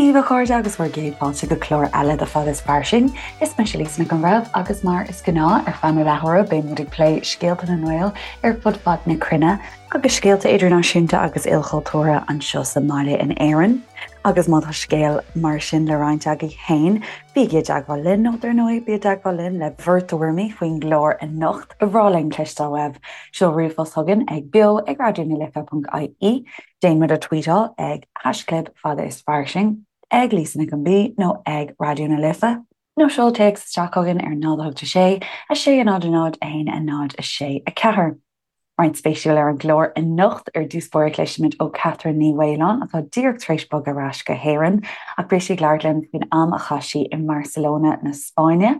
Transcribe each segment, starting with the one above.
daoibh a chairde agus bhur gcéad fáilte go clár eile de Fada is Fairsing. Is mise Lisa Nic an Bhreithimh agus mar is gnáth ar feadh na leathuaire beidh muid ag plé scéalta na nGael ar fud fad na cruinne agus scéalta idirnáisiúnta agus ilchultúrtha anseo sa mbaile in Éirinn. Agus má tá scéal mar sin le roinnt agaibh féin, bígí i dteagmháil linn nó dar ndóigh bí i dteagmháil linn le bhur dtuairimí faoin gclár anocht. Ba bhreá linn cloisteáil uaibh. Seol ríomhphost chugainn ag beo ag raidió na life.ie, déan muid a tweetáil ag haischlib fada is fairsing, ag Lisa Nic an B nó ag Raidió na Life, nó seol téacs isteach chugainn ar 0 8 6 6 0 0 1 0 6 4. Roinnt spéisiúil ar an gclár anocht. Ar dtús báire cloisfimid ó Catherine Ní Mhaoláin atá díreach tar éis bogadh ar ais go hÉirinn ach beidh sí ag labhairt linn faoin am a chaith sí i mBarcelona na Spáinne,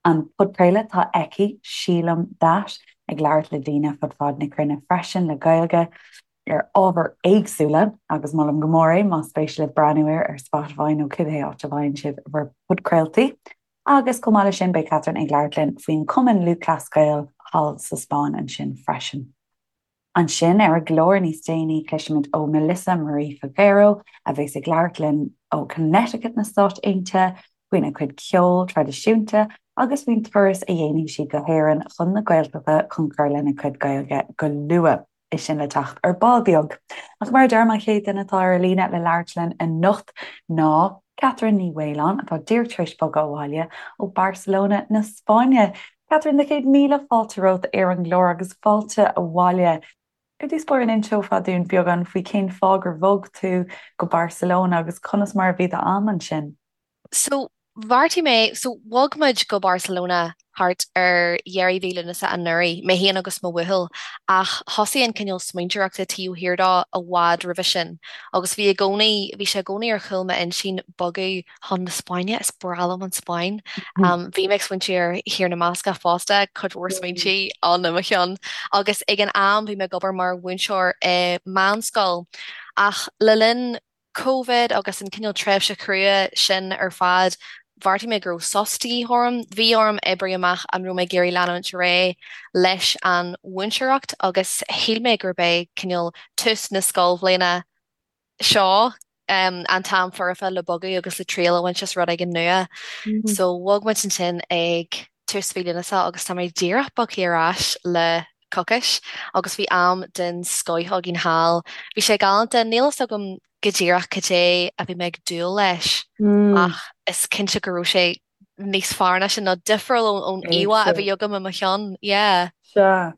an podchraoladh atá aici, Sílim That, ag labhairt le daoine fud fad na cruinne freisin le Gaeilge ar ábhair éagsúla agus molaim go mór é más spéis libh breathnú air ar Spotify nó cibé áit a bhfaigheann sibh bhur bpodchraoltaí. Agus chomh maith leis sin, beidh Catherine ag labhairt linn faoin Chumann Lúthchleas Gael thall sa Spáinn ansin freisin. Ansin, ar an gclár níos déanaí, cloisfimid ó Melissa Marie Figuero, a bheas ag labhairt linn ó Connecticut na Stáit Aontaithe, faoina cuid ceoil traidisiúnta agus faoin turas a dhéanfaidh sí go hÉirinn chun na Gaeltachta chun cur lena cuid Gaeilge go luath. É sin le teacht ar ball beag. Ach mar a deirim, an chéad duine atá ar an líne le labhairt linn anocht ná Catherine Ní Mhaoláin, atá díreach tar éis bogadh abhaile ó Barcelona na Spáinne. Catherine, do chéad míle fáilte romhat ar an gclár agus fáilte abhaile. Ar dtús báire, an inseofá dúinn beagán faoi cén fáth gur bhog tú go Barcelona agus conas mar a bhí d'am ansin? So, bheartaigh mé, so bhog muid go Barcelona thart ar dheireadh mhí Lúnasa anuraidh, mé féin agus mo bhuachaill, ach thosaigh an cineál smaointeoireachta taobh thiar dó i bhfad roimhe sin agus bhí i gcónaí, bhí sé i gcónaí ar chúl m'intinn bogadh chun na Spáinne, is breá liom an Spáinn. Bhí mé ag smaointiú ar Thír na mBascach fosta, cuid mhór smaointí ann i mo cheann agus ag an am bhí mé ag obair mar mhúinteoir i meánscoil ach le linn Covid agus an cineál tréimhse chrua sin ar fad, bheartaigh mé go raibh sos de dhíth orm. Bhí orm oibriú amach an raibh mé ag iarraidh leanúint ar aghaidh leis an mhúinteoireacht agus shíl mé gurb é cineál tús na scoilbhliana seo an t-am foirfe le bogadh agus le triail a bhaint as rud éigin nua. So bhog muid ansin ag tús mhí Lúnasa agus tá mé díreach bogtha ar ais le coicís agus bhí am den scoith againn thall. Bhí sé galánta, níl fhios agam go díreach cad é a bhí mé ag dúil leis ach is cinnte go raibh sé níos fearr ná sin, nó difriúil ón íomhá a bhí agam i mo cheann. Yeah. Sea.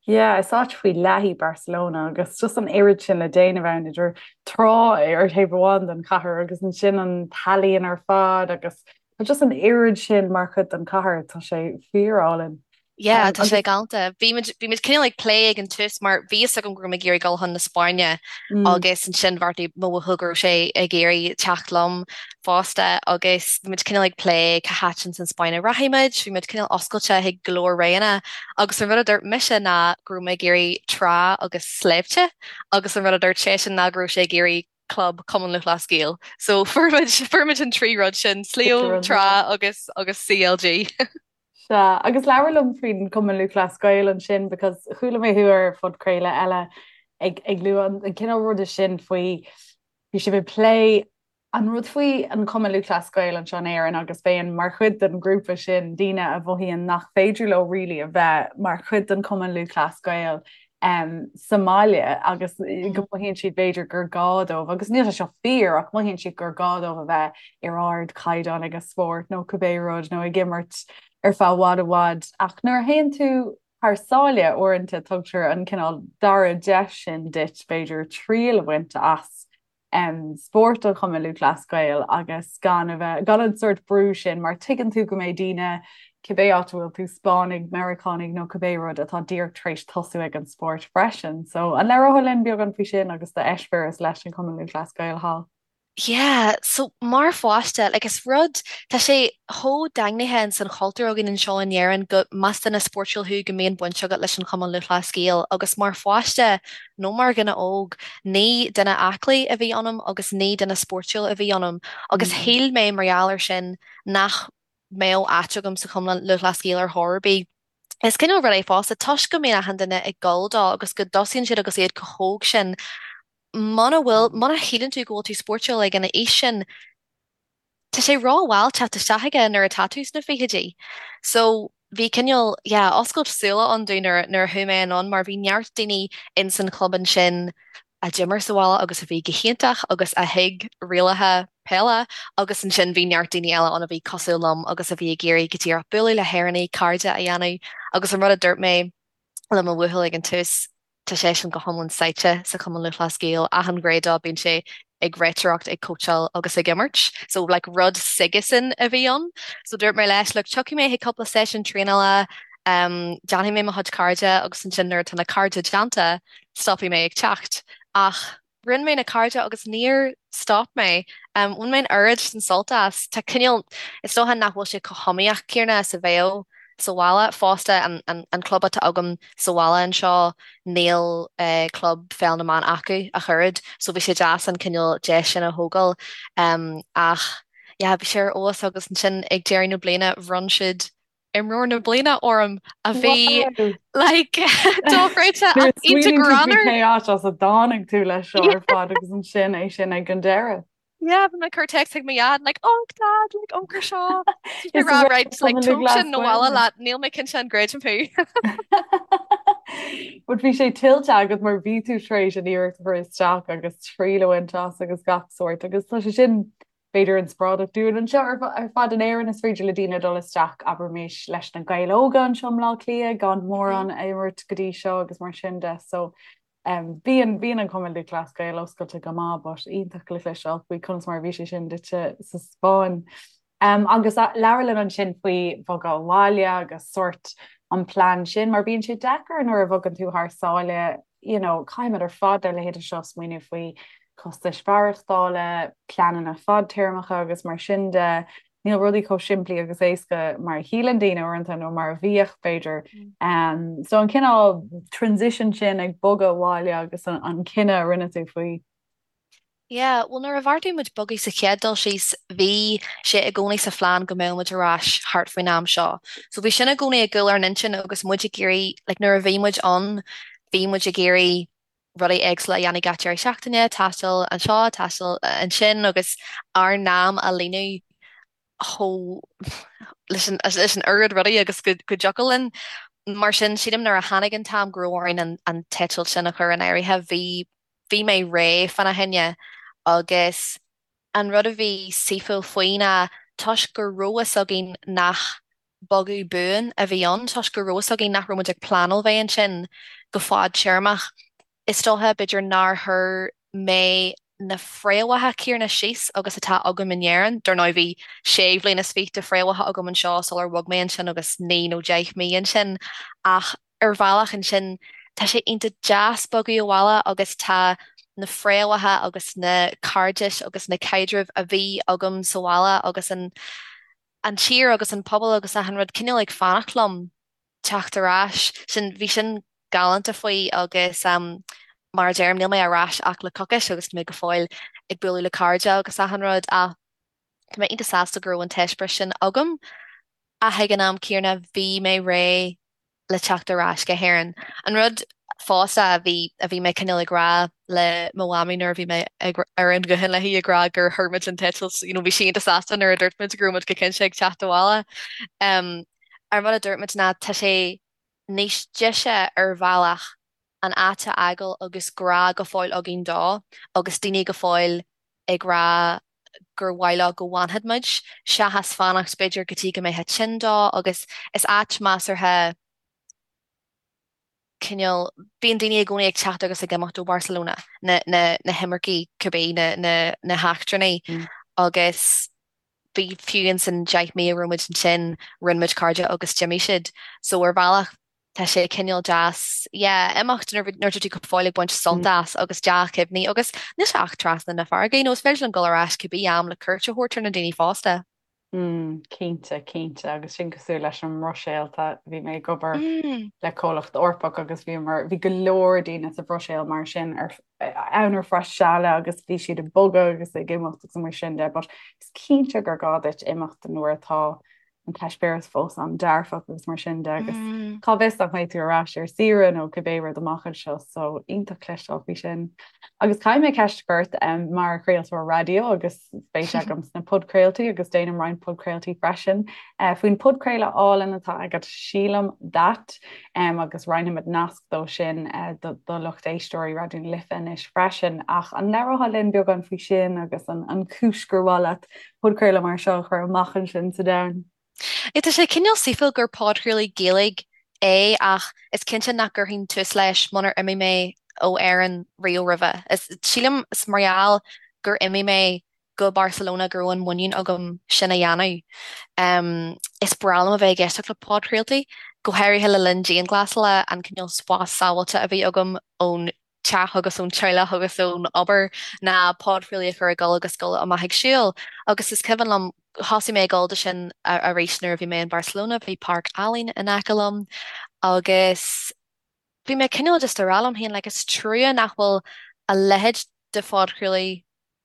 Yeah, is áit faoi leith í Barcelona agus just an oiread sin le déanamh ann idir trá ar thaobh amháin den chathair agus ansin an t-ealaíon ar fad agus tá just an oiread sin mar chuid den chathair, tá sé fíorálainn. Yeah, tá sé galánta. Bhí muid bhí muid cineál ag plé ag an tús mar bhí fhios agam go raibh mé ag iarraidh dul chun na Spáinne agus ansin bheartaigh mo bhuachaill go raibh sé ag iarraidh teacht liom fosta agus bhí muid cineál ag plé cá háit ins an Spáinn a rachaidh muid, bhí muid cineál oscailte chuig go leor roghanna agus an rud a dúirt mise ná go raibh mé ag iarraidh trá agus sléibhte agus an rud a dúirt seisean ná go raibh sé ag iarraidh club Cumann Lúthchleas Gael. So fuair muid fuair muid an trí rud sin, sliabh, trá agus agus CLG. Sea, agus labhair liom faoin Cumann Lúthchleas Gael ansin because chuala mé thú ar phodchraoladh eile ag ag lua an an cineál ruda sin faoi bhí sibh ag plé an rud faoi an Cumann Lúthchleas Gael anseo in Éirinn agus bheith mar chuid den ghrúpa sin daoine a mhothaíonn nach féidir leo really a bheith mar chuid den Cumann Lúthchleas Gael um, sa mbaile agus go mothaíonn siad b'fhéidir gur gá dóibh, agus níl sé seo fíor ach mothaíonn siad gur gá dóibh a bheith ar ardchaighdeán ag a spórt nó cibé rud nó ag imirt ar feadh i bhfad i bhfad ach nuair a théann tú thar sáile uaireanta tugtar an cineál dara deis sin duit b'fhéidir triail a bhaint as um, spórt an Chumainn Lúthchleas Gael agus gan a bheith, gan an sórt brú sin mar tuigeann tú go mbeidh daoine cibé áit a bhfuil tú, Spáinnigh, Meiriceánaigh nó cibé rud atá díreach tar éis tosú ag an spórt freisin. So an labhrófá linn beagán faoi sin agus d'eispéireas leis an Chumann Lúthchleas Gael thall? Yeah, so mar pháiste, like is rud, tá sé chomh daingnithe ins an chultúr againn anseo in Éirinn go más duine spórtúil thú go mbíonn baint agat leis an Chumann Lúthchleas Gael agus mar pháiste nó mar dhuine óg, ní duine aclaí a bhí ionam agus ní duine spórtúil a bhí ionam agus shíl mé mar gheall air sin nach mbeadh áit agam sa Chumann Lúthchleas Gael ar chor ar bith. Is cineál rud é fosta, toisc go mbíonn achan duine ag gabháil dó agus go dtosaíonn siad agus iad chomh hóg sin, muna bhfuil, muna shíleann tú go bhfuil tú spórtúil ag an aois sin, Tá sé rómhall teacht isteach aige nuair atá tú sna fichidí. So bhí cineál, yeah, oscailt súile ann domh nuair nuair a chuaigh mé anonn mar bhí neart daoine in san chlub ansin a d'imir sa bhaile agus a bhí go hiontach agus a thuig rialacha peile agus ansin bhí neart daoine eile ann a bhí cosúil liom agus a bhí ag iarraidh go díreach bualadh le hÉireannaigh, cairde a dhéanamh agus an rud a dúirt mé le mo bhuachaill ag an tús, Tá seisean go hiomlán sáite sa Chumann Lúthchleas Gael, achan ghné dó, bíonn sé ag réiteoireacht, ag cóitseáil agus ag imirt. So like rud s'aigesan a bhí ann. So dúirt mé leis, look, tiocfaidh mé chuig cúpla seisiún traenála, um, déanfaidh mé mo chuid cairde agus ansin nuair atá na cairde déanta, stopfaidh mé ag teacht. Ach rinne mé na cairde agus níor stop mé. Um, bhain mé an oiread sin sult as. Tá cineál, is dócha nach bhfuil sé chomh hiomaíoch céanna is a bheadh sa bhaile. Fosta, an, an, an club atá agam sa bhaile anseo, níl eh, club pheil na mban acu ach oiread, so bhí sé deas an cineál deis sin a thógáil. Um, ach, yeah, bhí sé ar fheabhas agus ansin ag deireadh na bliana bhronn siad imreoir na bliana orm a bhí like dochreidte ach iontach greannmhar. Cé áit as a dtáinig tú leis seo ar fad agus ansin é sin ag an deireadh. Yeah, bhí mé ag cur text chuig mo dhaid like oh dad like amharc air seo. Is rá right like tóg sin abhaile leat níl mé cinnte an gcreidim thú. But bhí sé tuillte agat mar bhí tú tar éis an iarracht a chur isteach agus triail a bhaint as agus gach sórt agus tá sé sin b'fhéidir inspioráideach dúinn anseo ar fad in Éirinn is féidir le daoine dul isteach, abraimis, leis na Gaeil Óga anseo i mBleá Cliath gan mórán a imirt go dtí seo agus mar sin de. So um, bíonn bíonn an Cumann Lúthchleas Gael oscailte go maith, but iontach le cloisteáil faoi conas mar a bhí sé sin duitse sa Spáinn. Um, agus labhair linn ansin faoi bhogadh abhaile agus sórt an plean sin, mar bíonn sé deacair nuair a bhogann tú thar sáile you know, caithfimid ar fad dár leithéide seo smaoineamh faoi costais mhaireachtála, pleananna fadtéarmacha agus mar sin de. Níl rudaí chomh simplí agus éasca mar a shíleann daoine uaireanta nó mar a bhíodh b'fhéidir. Um, so an cineál transition sin ag bogadh abhaile agus an, an cinneadh a rinne tú faoi. Yeah, bhuel nuair a bheartaigh muid bogadh sa chéad dul síos, bhí sé i gcónaí sa phlean go mbeadh muid ar ais thart faoin am seo. So bhí sin i gcónaí i gcúl ár n-intinn agus muid ag iarraidh, like nuair a bhí muid ann, bhí muid ag iarraidh rudaí éagsúla a dhéanamh gach deireadh seachtaine, taisteal anseo, taisteal ansin agus ár n-am a líonadh chomh leis an leis an oiread rudaí agus go go dtiocfadh linn. Mar sin, sílim nuair a tháinig an t-am go raibh orainn an an t-eitilt sin a chur in áirithe, bhí bhí mé réidh fána choinne agus an rud a bhí saoithiúil faoi ná toisc go raibh fhios againn nach bogadh buan a bhí ann, toisc go raibh fhios againn nach raibh muid ag pleanáil bheith ansin go fadtéarmach, is dócha, b'fhéidir nár chuir mé na fréamhacha céanna síos agus atá agam in Éirinn. Dar ndóigh bhí sé bhliain is fiche de fréamhacha agam anseo sular bhog mé ansin agus naoi nó deich mí ansin ach ar bhealach ansin tá sé iontach deas bogadh abhaile agus tá na fréamhacha agus na cairdis agus na caidrimh a bhí agam sa bhaile agus an an tír agus an pobal agus achan rud cineál ag fanacht liom teacht ar ais. Sin, bhí sin galánta faoi agus mar a deirim níl mé ar ais ach le coicís agus tá mé go fóill ag bualadh le cairde agus achan rud ach tá mé iontach sásta go raibh an t-eispéireas sin agam ach ag an am céanna bhí mé réidh le teacht ar ais go hÉirinn. An rud fosta a bhí a bhí mé cineál ag rá le mo mhamaí nuair a bhí mé ag ar an ghuthán léi ag rá gur chuir muid an t-eitilt, you know, bhí sí iontach sásta nuair a dúirt muid go raibh muid go cinnte ag teacht abhaile. Um, an rud a dúirt muid ná tá sé níos deise ar bhealach an áit a fhágáil agus grá go fóill againn dó agus daoine go fóill ag rá gur mhaith leo go bhfanfadh muid, seachas fanacht b'fhéidir go dtí go mbeifeá tinn dó agus is áit measartha cineál, bíonn daoine i gcónaí ag teacht agus ag imeacht ó Barcelona, na, na, na himircigh cibé, na, na, na heachtrannaigh agus bhí fiú ins an 10 mí a raibh muid ansin, rinne muid cairde agus d'imigh siad. So ar bhealach tá sé cineál deas, yeah, imeacht nuair nuair atá tú go fóill ag baint sult as agus dea-chuimhní agus níl sé ach trasna na farraige, you know, is féidir linn dul ar ais cibé am le cuairt a thabhairt ar na daoine fosta. Mm, cinnte, cinnte, agus sin cosúil leis an mBruiséil, tá, bhí mé ag obair mm. le comhlacht Eorpach agus bhí mar bhí go leor daoine sa Bhruiséil mar sin ar ann ar feadh seala agus bhí siad ag bogadh agus ag imeacht agus mar sin de, but is cinnte gur gá duit imeacht nuair atá. an t-eispéireas fós an-dearfach agus mar sin de agus cá bhfios nach mbeidh tú ar ais ar saoire nó cibé rud amach anseo so iontach cloisteáil faoi sin. Agus caithfidh mé ceist a chur ort um, mar chraoltóir raidió agus spéis agam sna podchraoltaí agus déanaim roinnt podchraoltaí freisin uh, faoin podchraoladh álainn atá agat sílim that um, agus roinnfimid nasc dó sin uh, do, do lucht éisteoirí Raidió na Life anois freisin ach an labhrófá linn beagán faoi sin agus an, an chúis gur mhaith leat podchraoladh mar seo a chur amach ansin sa domhan. Tá sé cineál saoithiúil gur podchraoladh Gaeilge é ach is cinnte nach gcuirfinn tús leis munar imigh mé ó Éirinn riamh roimhe. Is sílim is mar gheall gur imigh mé go Barcelona go raibh an muinín agam sin a dhéanamh. Is breá liom a bheith ag éisteacht le podchraoltaí, go háirithe le linn dianghlasála, an cineál spás sábháilte a bhí agam ón teach agus ón teaghlach agus ón obair ná podchraoladh a chur ag dul agus dul amach ag siúl. Agus is cuimhin liom, thosaigh mé ag dul do sin arís nuair a bhí mé in Barcelona, bhí páirc álainn in aice liom agus bhí mé cineál just ag rá liom féin like is trua nach bhfuil a leithéid de phodchraoladh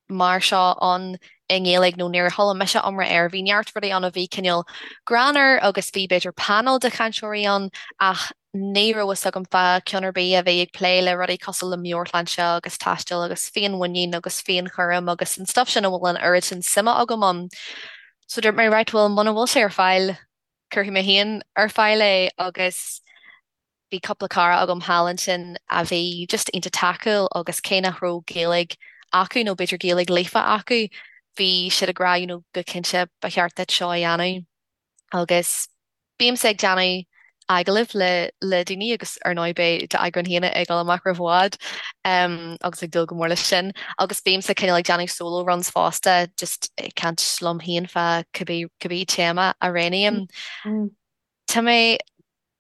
mar seo ann i nGaeilge nó níor chuala mise iomrá air. Bhí neart rudaí ann a bhí cineál greannmhar agus bhí b'fhéidir panel de chainteoirí ann ach ní raibh fhios agam fá ceann ar bith a bhí ag plé le rudaí cosúil le meabhairshláinte agus taisteal agus féinmhuinín agus féinchúram agus an stuff sin a bhfuil an oiread sin suime agam ann. So dúirt mé right bhuel muna bhfuil sé ar fáil cuirfidh mé féin ar fáil é agus Bhí cúpla cara agam thall ansin a bhí just iontach tacúil agus cé nach raibh Gaeilge acu nó b'fhéidir Gaeilge líofa acu, bhí siad ag rá you know go cinnte ba cheart duit seo a dhéanamh. Agus bímse ag déanamh agallaimh le le daoine agus ar ndóigh beidh d'eagrán féin ag dul amach roimh i bhfad agus ag dúil go mór leis sin. Agus bímse cineál ag déanamh solo runs fosta just ag caint liom féin fá cibé cibé téama a roghnaím. Tá mé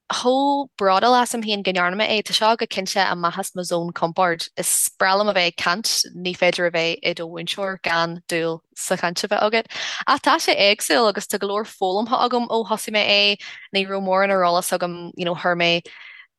chomh bródúil asam féin go ndearna mé é. Tá seo go cinnte amach as mo zón compoird. Is breá liom a bheith ag caint, ní féidir a bheith i do mhúinteoir gan dúil sa chaint a bheith agat. Ach tá sé éagsúil agus tá go leor foghlamtha agam ó thosaigh mé é. Ní raibh mórán ar eolas agam, you know, chuir mé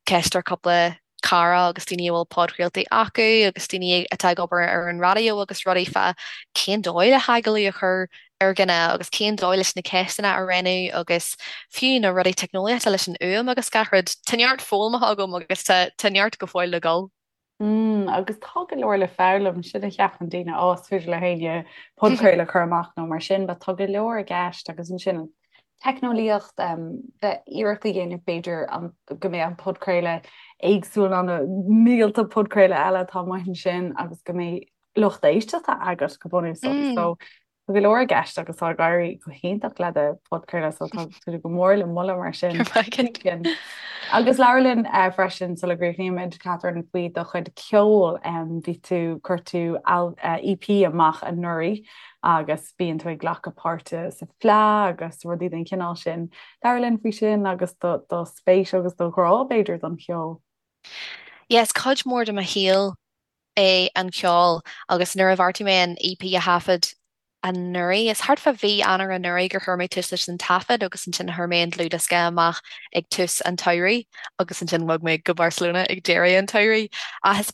ceist ar cúpla cara agus daoine a bhfuil podchraoltaí acu agus daoine atá ag obair ar an raidió agus rudaí fá cén dóigh le hagallamh a chur ar dhuine agus cén dóigh leis na ceisteanna a roghnú agus fiú na rudaí teicneolaíochta leis an fhuaim agus gach rud. Tá neart foghlamtha agam agus tá tá neart go fóill le dhul. Mm, agus tá go leor le foghlaim, sin a cheapann daoine, á, is féidir le héinne podchraoladh a chur amach nó mar sin, but tá go leor i gceist agus ansin an teicneolaíocht, bheith iarracht a dhéanamh b'fhéidir go mbeidh an podchraoladh éagsúil ná na mílte podchraoladh eile atá amuigh ansin agus go mbeidh lucht éisteachta agat go bunúsach. So tá go leor i gceist agus tá ag éirí go hiontach le do podchraoladh so tá tú go mór le moladh mar sin. Agus labhair linn eh, freisin sula gcríochnaímid Catherine faoi do chuid ceoil bhí tú chuir tú EP eh, amach anuraidh agus bíonn tú ag glacadh páirte sa Fleadh agus rudaí den chineál sin. Labhair linn faoi sin agus do do spéis agus do ghrá b'fhéidir don cheol. Yes, cuid mhór de mo shaol é an ceol agus nuair a bheartaigh mé an EP a thaifead anuraidh, is thart fá mhí Eanáir anuraidh gur chuir mé tús leis an taifead agus ansin chuir mé an dlúthdhiosca amach ag tús an tsamhraidh agus ansin bhog mé go Barcelona ag deireadh an tsamhraidh. Ach is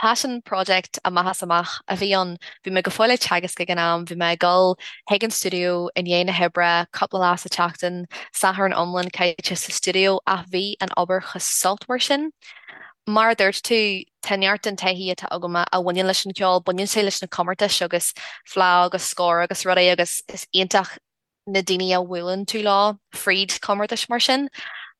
Passion project amach is amach a bhí ann. Bhí mé go fóill ag teagasc ag an am, bhí mé ag dul chuig an stiúideo i ndiaidh na hoibre cúpla lá sa tseachtain, Satharn iomlán caite sa stiúideo ach bhí an obair chomh sultmhar sin. Mar a dúirt tú, tá neart den taithí atá agam a bhaineann leis an cheol, baineann sé leis na comórtais agus Fleadh agus Scór agus rudaí agus is iontach na daoine a bhuaileann tú leo fríd chomórtais mar sin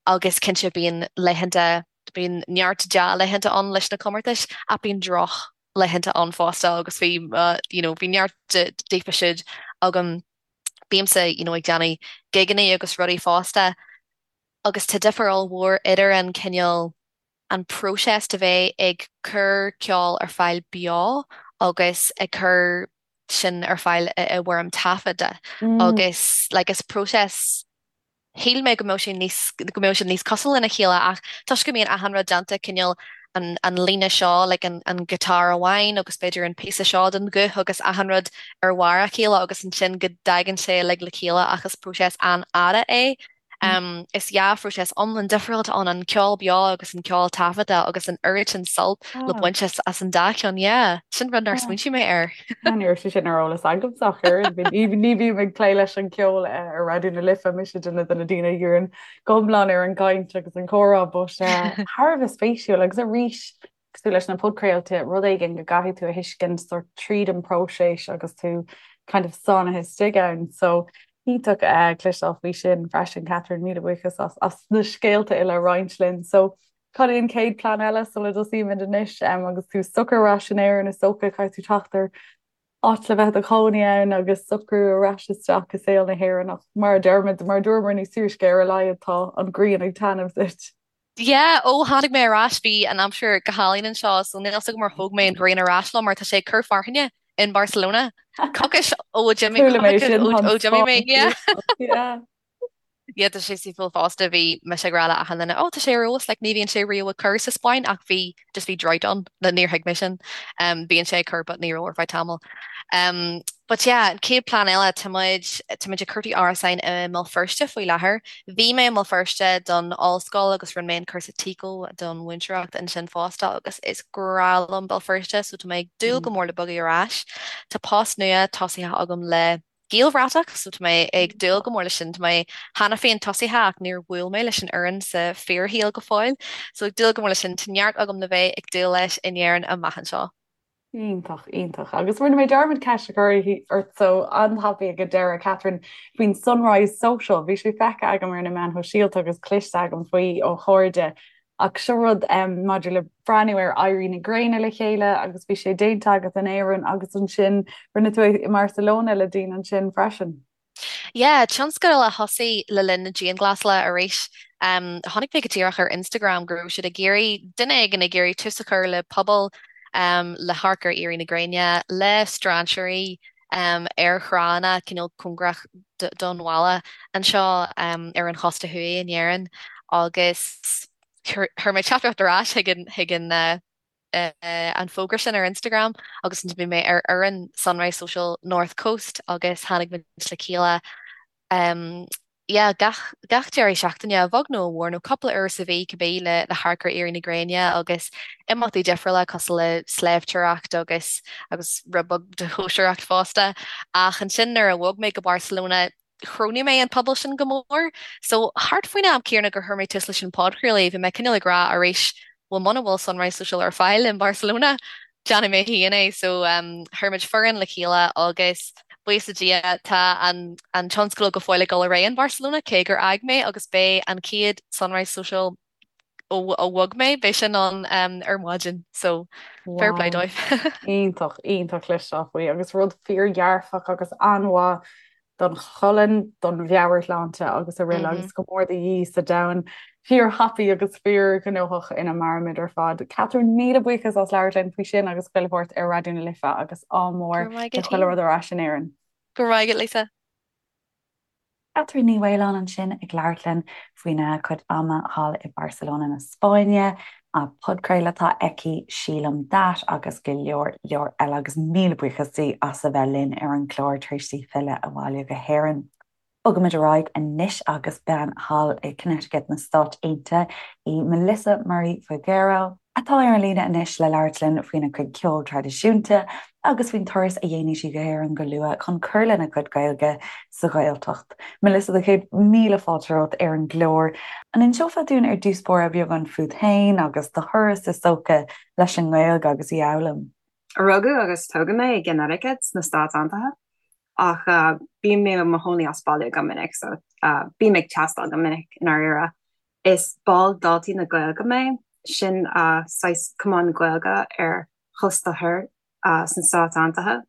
agus cinnte bíonn laethanta, bíonn neart dea-laethanta ann leis na comórtais ach bíonn drochlaethanta ann fosta agus bhí you know bhí neart díofa siúd agam. Bímse you know ag déanamh gigeanna agus rudaí fosta agus tá difear ollmhór idir an cineál an próiseas de bheith ag cur ceol ar fáil beo agus ag cur sin ar fáil i bhfoirm taifeadta agus like is próiseas shíl mé go mbeadh sé níos go mbeadh siad níos cosúil lena chéile ach toisc go mbíonn achan rud déanta cineál an an líne seo like an an guitar amháin agus b'fhéidir an píosa seo den ghuth agus achan rud ar bharr a chéile agus ansin go dtagann sé uilig le chéile ach is próiseas an-fhada é. Is yeah phróiseas iomlán difriúil atá ann, an ceol beo agus an ceol taifeadta agus an oiread sin sult le baint as an dá cheann, yeah. Sin rud nár smaointigh mé air. Ní raibh sé sin ar eolas agamsa ach oiread. Ní bhím ag plé leis an gceol ar Raidió na Life, mise duine de na daoine a dhíríonn go hiomlán ar an gcaint agus an comhrá, but thar a bheith spéisiúil agus arís cosúil leis na podchraolta, rud éigin go gcaithfidh tú a thuiscint sort tríd an próiseas agus tú kind of sáinnithe istigh ann. So iontach cloisteáil faoi sin freisin, Catherine, míle buíochas as as na scéalta uile a roinnt linn. So cad é an chéad plean eile sula dtosaímid anois um, agus tú socair ar ais in Éirinn is dócha caithfidh tú teacht ar áit le bheith i do chónaí ann agus socrú ar ais isteach i saol na hÉireann ach mar a deirimid, mar a dúramar níos túisce ar a laghad tá an ghrian ag taitneamh duit. Yeah, ó tháinig mé ar ais bhí an aimsir go hálainn anseo so níl 'fhios agam ar thóg mé an ghrian ar ais liom mar tá sé ag cur fearthainne in Barcelona. Coicís ó d'imigh Chuala mé sin, ó tá an d'imigh mé, Spáinn yeah. yeah. Yeah, tá sé saoithiúil fosta, bhí mise ag rá le achan duine, oh tá sé ar fheabhas, like ní bhíonn sé riamh ag cur sa Spáinn ach bhí, just bhí drought ann, níor thuig mé sin. Um, bíonn sé ag cur but ní raibh ar feadh tamaill. Um, but yeah, an chéad plean eile, tá muid, tá muid ag cuartú árasáin i mBéal Feirste faoi láthair. Bhí mé i mBéal Feirste don ollscoil agus rinne mé an cúrsa TECO don mhúinteoireacht ansin fosta agus is grá liom Béal Feirste so tá mé ag dúil go mór le bogadh ar ais. Tá post nua tosaithe agam le Gaelbhratach so tá mé ag dúil go mór leis sin. Tá mé cheana féin tosaithe ach níor bhuail mé leis an fhoireann sa fíorshaol go fóill so ag dúil go mór leis sin. Tá neart agam le bheith ag dúil leis in Éirinn amach anseo. Iontach, iontach. Agus rinne mé dearmad ceist a chur ort so an-tapaidh ag an deireadh, Catherine, faoin Sunrise Social. Bhí sé feicthe agam ar na meáin shóisialta agus cloiste agam faoi ó chairde. Ach seo rud maidir le breathnú ar éirí na gréine le chéile agus bhí sé déanta agat in Éirinn agus ansin rinne tú é i mBarcelona le daoine ansin freisin. Yeah, tionscadal a thosaigh le linn na dianghlasála arís. Chonaic mé go díreach ar Instagram go raibh siad ag iarraidh, duine éigin ag iarraidh tús a chur le pobal le hamharc ar éirí na gréine le strainséirí ar thránna cineál cóngarach don bhaile anseo ar an chósta thuaidh in Éirinn agus chuir mé teachtaireacht ar ais chuig an chuig an an fógra sin ar Instagram agus ansin bhí mé ar fhoireann Sunrise Social North Coast agus tháinig muid le chéile yeah gach gach deireadh seachtaine, a bheag nó a mhór, nó cúpla uair sa mhí cibé le le hamharc ar éirí na gréine agus imeachtaí difriúla cosúil le sléibhteoireacht agus agus rud beag de chóisireacht fosta. Ach ansin nuair a bhog mé go Barcelona chronaigh mé an pobal sin go mór. So thart faoin am céanna gur chuir mé tús leis an podchraoladh, bhí mé cineál ag rá arís, bhuel muna bhfuil Sunrise Social ar fáil in Barcelona, déanfaidh mé féin é. So chuir muid foireann le chéile agus buíochas le Dia tá an an tionscadal go fóill ag dul ar aghaidh in Barcelona, cé gur fhág mé agus beidh an chéad Sunrise Social ó ó bhog mé, beidh sin ann ar maidin. So fair play Wow. dóibh. Iontach, iontach cloisteáil faoi agus rud fíordhearfach agus an-mhaith don cholainn, don mheabhairshláinte agus araile agus go mór de dhíth sa domhan fíorthapaidh agus fíorghnóthach ina mairimid ar fad. Catherine, míle buíochas as labhairt linn faoi sin agus chuile shórt ar Raidió na Life agus ádh mór le chuile rud ar ais in Éirinn. Go raibh maith agat, Lisa. Catherine Ní Mhaoláin ansin ag labhairt linn faoina cuid ama thall i Barcelona na Spáinne, a podchraoladh atá aici, Sílim That agus go leor leor eile agus míle buíochas di as a bheith linn ar an gclár tar éis di filleadh abhaile go hÉirinn. Bogaimid ar aghaidh anois agus bean thall i Connecticut na Stáit Aontaithe í Melissa Murray Figuero, atá ar an líne anois le labhairt linn faoina cuid ceoil traidisiúnta agus faoin turas a dhéanfaidh sí go hÉirinn go luath chun cur lena cuid Gaeilge sa Ghaeltacht. Melissa, do chéad míle fáilte romhat ar an gclár. An inseofá dúinn ar dtús báire beagán fút féin agus do thuras is dócha leis an nGaeilge agus í a fhoghlaim? Rugadh agus tógadh mé i gConnecticut sna Stáit Aontaithe ach bím mé i mo chónaí as baile go minic so bím ag taisteal go minic i ndáiríre. Is ball Daltaí na Gaeilge mé, sin saghas cumann Gaeilge ar chósta thoir sna Stáit Aontaithe,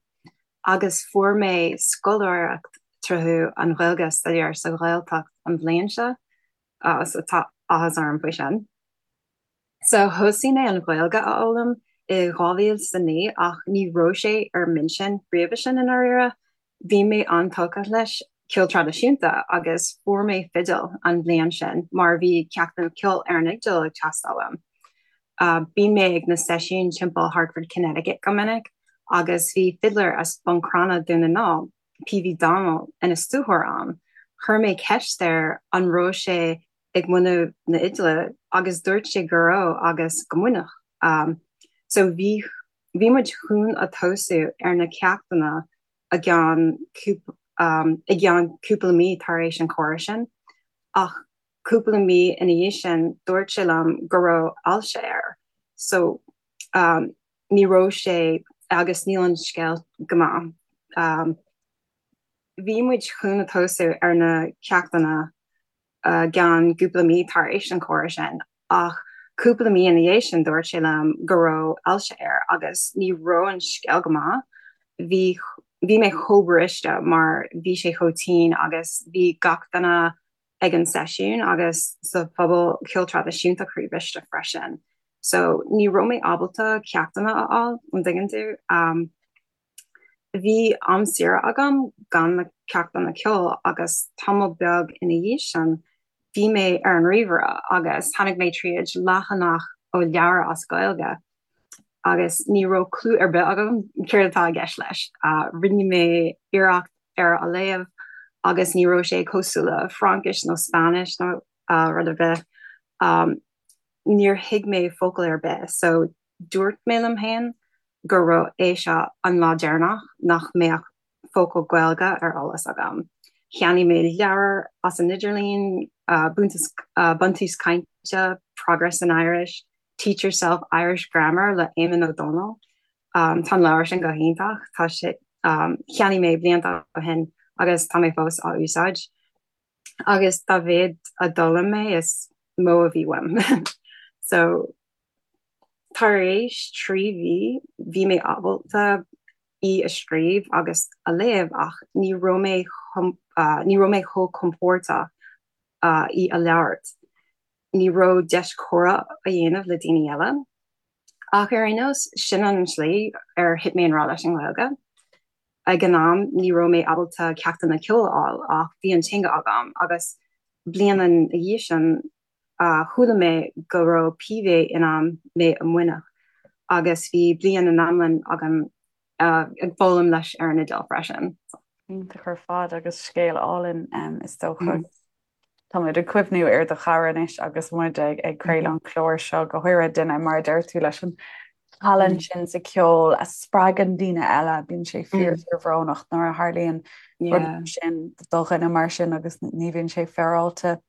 agus fuair mé scoláireacht tríothu an Ghaeilge a staidéar sa Ghaeltacht an bhliain seo, so tá áthas orm faoi sin. So thosaigh mé an Ghaeilge a fhoghlaim i 2009 ach ní raibh sé ar m'intinn roimhe sin i ndáiríre. Bhí mé an-tógtha leis ceol traidisiúnta agus fuair mé fidil an bhliain sin mar bhí ceachtanna ceoil ar an fhidil ag teastáil uaim. Bíonn mé ag na seisiúin timpeall Hartford, Connecticut go minic agus bhí fidléir as Bun Cranncha, Dún na nGall, P.V. Donnell, ina stiúrthóir ann. Chuir mé ceist air an raibh sé ag múineadh na Iodáile agus dúirt sé go raibh agus go múinfeadh. So bhí bhí muid chun a tosú ar na ceachtanna i gceann i gceann cúpla mí tar éis an comhrá sin ach cúpla mí ina dhiaidh sin dúirt sé liom go raibh ailse air so ní raibh sé agus níl an scéal go maith. Bhí muid chun a tosú ar na ceachtanna i gceann cúpla mí tar éis an comhrá sin ach cúpla mí ina dhiaidh sin dúirt sé liom go raibh ailse air agus ní raibh an scéal go maith. Bhí bhí mé chomh briste mar bhí sé chomh tinn agus bhí gach duine ag an seisiún agus sa phobal ceol traidisiúnta croíbhriste freisin. So ní raibh mé ábalta ceachtanna a fháil, an dtuigeann tú? Um, Bhí am saoire agam gan na ceachtanna ceoil agus tamall beag ina dhiaidh sin bhí mé ar an ríomhaire agus tháinig mé tríd leathanach ó leabhar as Gaeilge agus ní raibh clue ar bith agam céard atá i gceist leis. Rinne mé iarracht ar a léamh agus ní raibh sé cosúil le Fraincis nó Spáinnis nó rud ar bith. Níor thuig mé focal ar bith so Dúirt mé liom féin go raibh é seo an lá deireanach nach mbeadh focal Gaeilge ar eolas agam. Cheannaigh mé leabhar as an idirlíon, Buntús Cainte, Progress in Irish, Teach Yourself Irish Grammar le Éamonn Ó Dónaill. Tá an leabhar sin go hiontach. Tá sé, cheannaigh mé blianta ó shin agus tá mé fós á úsáid. Agus dá mhéad a d'fhoghlaim mé is mó a bhí uaim. So tar éis 3 mhí bhí mé ábalta í a scríobh agus a léamh ach ní raibh mé ní raibh mé chomh compordach í a labhairt. Ní raibh deis comhrá a dhéanamh le daoine eile. Ach ar aon nós, sin an tslí ar thit mé i ngrá leis an nGaeilge. Ag an am ní raibh mé ábalta ceachtanna ceoil a fháil ach bhí an teanga agam agus bliain ina dhiaidh sin chuala mé go raibh PV in ann mé a mhúineadh agus bhí bliain in iomlán agam ag foghlaim leis ar an Iodáil freisin. Iontach ar fad agus scéal álainn is dócha. Táimid ag cuimhniú ar do chara anois agus muid ag ag craoladh an chláir seo, go háirithe duine, mar a deir tú, leis an tallann sin sa cheol a spreagann daoine eile. Bíonn sé fíor fíorbhrónach nuair a tharlaíonn rud mar sin do dhuine mar sin agus ní bhíonn sé féaráilte.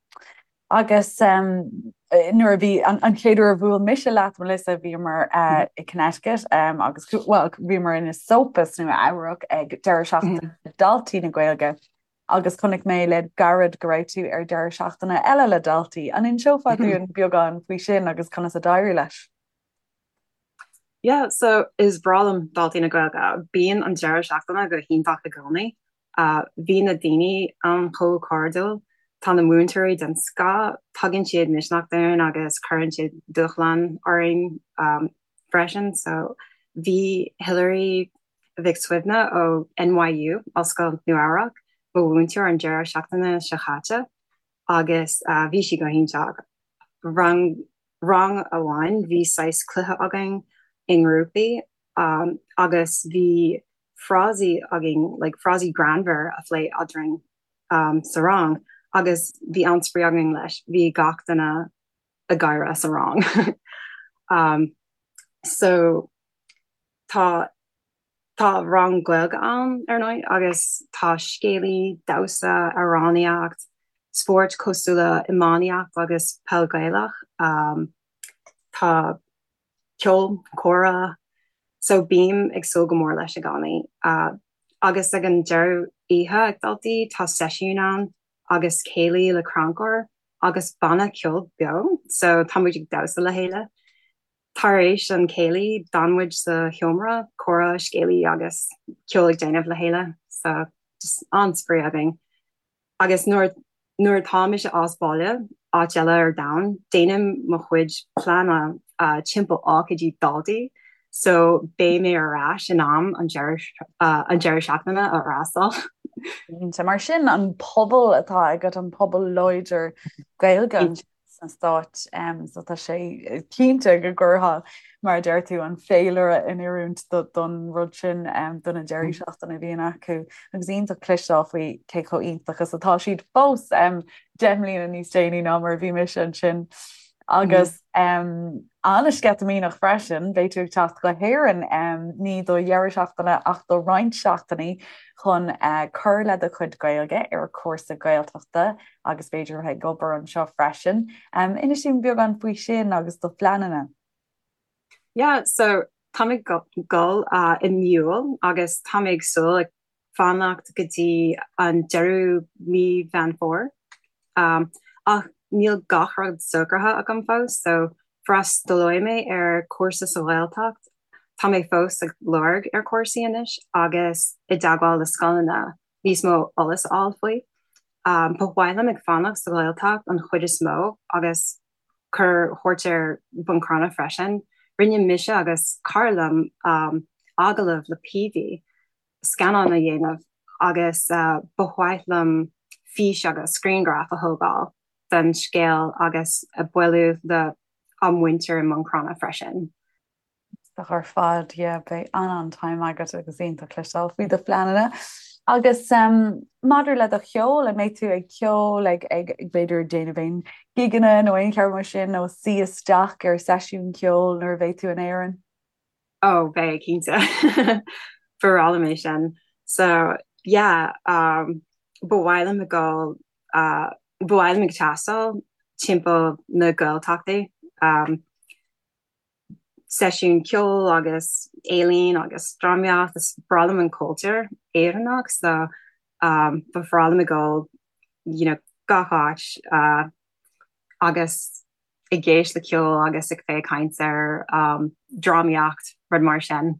Agus nuair a bhí an chéad uair a bhuail mise leat, Melissa, bhíomar i Connecticut agus bhuel bhíomar in Esopus, Nua Eabhrac ag deireadh seachtaine Daltaí na Gaeilge. Agus chonaic mé le gairid go raibh tú ar deireadh seachtaine eile le daltaí. An inseofá dúinn beagán faoi sin agus conas a d'éirigh leis? Yeah, so is breá liom Daltaí na Gaeilge. Bíonn an deireadh seachtaine go hiontach i gcónaí. Bhí na daoine ann chomh cairdiúil. Tá na múinteoirí den scoth, tugann siad misneach dúinn agus cuireann siad dúshlán orainn freisin. So bhí Hilary Mhic Suibhne ó NYU, Ollscoil Nua Eabhrac, mo mhúinteoir an deireadh seachtaine seo chaite agus bhí sí go hiontach. Rang rang amháin bhí saghas cluiche againn i ngrúpaí agus bhí frásaí againn, like frásaí greannmhar a phlé eadrainn sa rang agus bhí an-spraoi againn leis, bhí gach duine ag gáire sa rang. So Tá Tá rang Gaeilge ann, ar ndóigh, agus tá scéalaí, damhsa, amhránaíocht, spóirt cosúil le iománaíocht agus peil Gaelach. Tá ceol, comhrá, so bím ag súil go mór leis i gcónaí. Agus ag an deireadh oíche ag Daltaí tá seisiún ann agus céilí le crannchur agus banna ceoil beo, so tá muid ag damhsa le chéile. Tar éis an chéilí, d'fhan muid sa sheomra, comhrá, scéalaí agus ceol ag déanamh le chéile, so just an-spraoi againn. Agus nuair nuair atá mise as baile, áit eile ar domhan, déanaim mo chuid pleanála timpeall ócáidí daltaí, so beidh mé ar ais in am an deireadh an deireadh seachtaine a fhreastal. Cinnte, mar sin an pobal atá agat, an pobal láidir Gaeilge. sna Stáit so tá sé cinnte go gcuirfeá, mar a deir tú, an féilire in oiriúint don rud sin do na deirí seachtaine a bhíonn acu agus iontach cloisteáil faoi cé chomh iontach is atá siad fós 10 mbliana níos déanaí ná mar a bhí mise ansin. Agus an-sceitimíneach freisin, beidh tú ag teacht go hÉirinn, ní do dheireadh seachtaine ach do roinnt seachtainí chun cur le do chuid Gaeilge ar chúrsa Gaeltachta agus b'fhéidir a bheith ag obair anseo freisin. Inis dúinn beagán faoi sin agus do phleananna. Yeah, so táim ag dul i mí Iúil agus táim ag súil ag fanacht go dtí an deireadh mí Mheán Fómhair. Ach níl gach rud socraithe agam fós, so freastalóidh mé ar cúrsa sa Ghaeltacht. Tá mé fós ag lorg ar cúrsaí anois agus i dteagmháil le scoileanna níos mó eolas a fháil faoi. Ba mhaith liom ag fanacht sa Ghaeltacht an chuid is mó agus cur chuairt ar Bhun Cranncha freisin. Rinne mise agus cara liom agallamh le PV, scannán a dhéanamh agus ba mhaith liom fís agus grianghraf a thógáil den scéal agus bualadh le ár muintir i mBun Cranncha freisin. Iontach ar fad, yeah, beidh an-an-time agat agus iontach cloisteáil faoi do phleananna. Agus maidir le do cheol, an mbeidh tú ag ceol, ag, ag, b'fhéidir déanamh aon gigeanna nó aon cheann mar sin nó suí isteach ar seisiún ceoil nuair a bheidh tú in Éirinn? Oh, beidh, cinnte. Ba bhreá liom é sin. So, yeah, um, ba mhaith liom ag dul, uh, ba mhaith liom ag taisteal timpeall na Gaeltachtaí. Um, seisiún ceoil agus ealaín agus drámaíocht, is breá liom an cultúr Éireannach so um, ba bhreá liom ag dul you know, gach áit uh, agus ag éist le ceol agus ag féachaint ar um, drámaíocht, rud mar sin.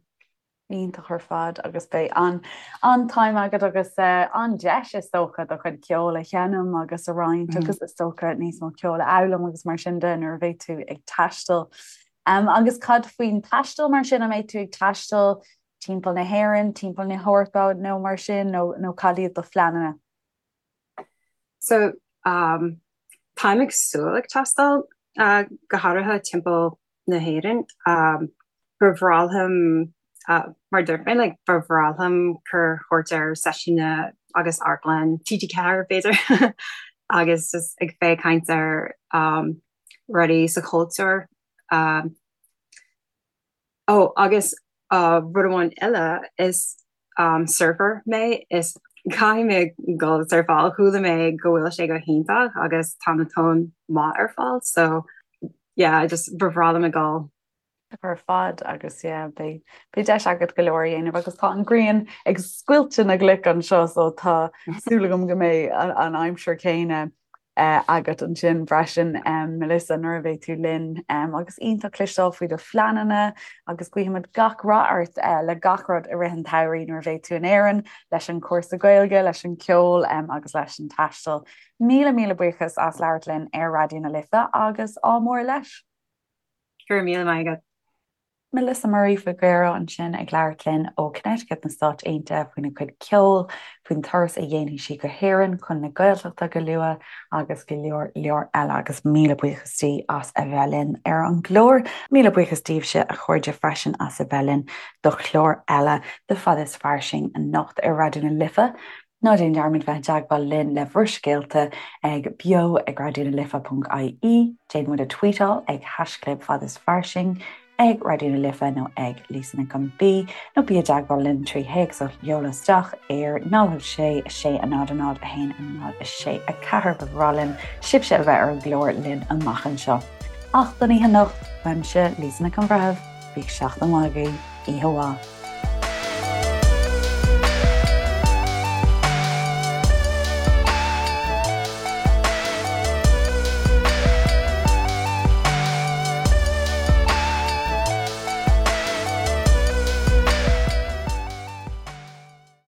Iontach ar fad agus beidh an an-time agat agus an-deis is dócha do chuid ceoil a sheinm agus a roinnt agus is dócha níos mó ceoil a fhoghlaim agus mar sin de nuair a bheidh tú ag taisteal. Agus cad faoin taisteal mar sin, an mbeidh tú ag taisteal timpeall na hÉireann, timpeall na hEorpa nó mar sin nó cad iad do phleananna? So um, táim ag súil ag taisteal uh, go háirithe timpeall na hÉireann. Um, ba bhreá liom uh, mar dúirt mé like, ba bhreá liom cur chuairt ar seisiúna agus amharclann TG4 b'fhéidir agus just ag féachaint ar um, rudaí sa chultúr. Um, Ó, agus rud amháin eile, is surfer mé, is caithfidh mé dul surfáil, chuala mé go bhfuil sé go hiontach agus tá na tonn maith ar fáil, so yeah, just ba bhreá liom a dhul. Ar fad agus yeah, beidh beidh deis agat go leor a dhéanamh agus tá an ghrian ag scoilteadh na gcloch anseo so tá súil agam go mbeidh an aimsir céanna agat ansin freisin, Melissa, nuair a bheidh tú linn agus iontach cloisteáil faoi do phleananna agus guímid gach rath ort le gach rud i rith an tsamhraidh nuair a bheidh tú in Éirinn, leis an chúrsa Gaeilge, leis an ceol agus leis an taisteal. Míle míle buíochas as labhairt linn ar Raidió na Life agus ádh mór leis! Go raibh míle maith agat. Melissa Murray Figuero ansin ag labhairt linn ó Connecticut na Stáit Aontaithe faoina cuid ceoil, faoin turas a dhéanfaidh sí go hÉirinn chun na Gaeltachta go luath agus go leor leor eile agus míle buíochas di as a bheith linn ar an gclár. Míle buíochas daoibhse a chairde freisin as a bheith linn do chlár eile de Fada is Fairsing anocht ar Raidió na Life. Ná déan dearmad bheith i dteagmháil linn le bhur scéalta ag beo ag raidió na life ponc ie, déan muid a tweetáil ag haischlib fad is fairsing, ag Raidió na Life nó ag Lisa Nic an B, nó bí i dteagmháil linn trí théacs a sheoladh isteach ar 0 6 6 0 0 1 0 6 4 Ba bhreá linn sibhse a bheith ar an gclár linn amach anseo. Ach don oíche anocht, uaimse, Lisa Nic an Bhreithimh, bíodh seachtain mhaith agaibh, oíche mhaith.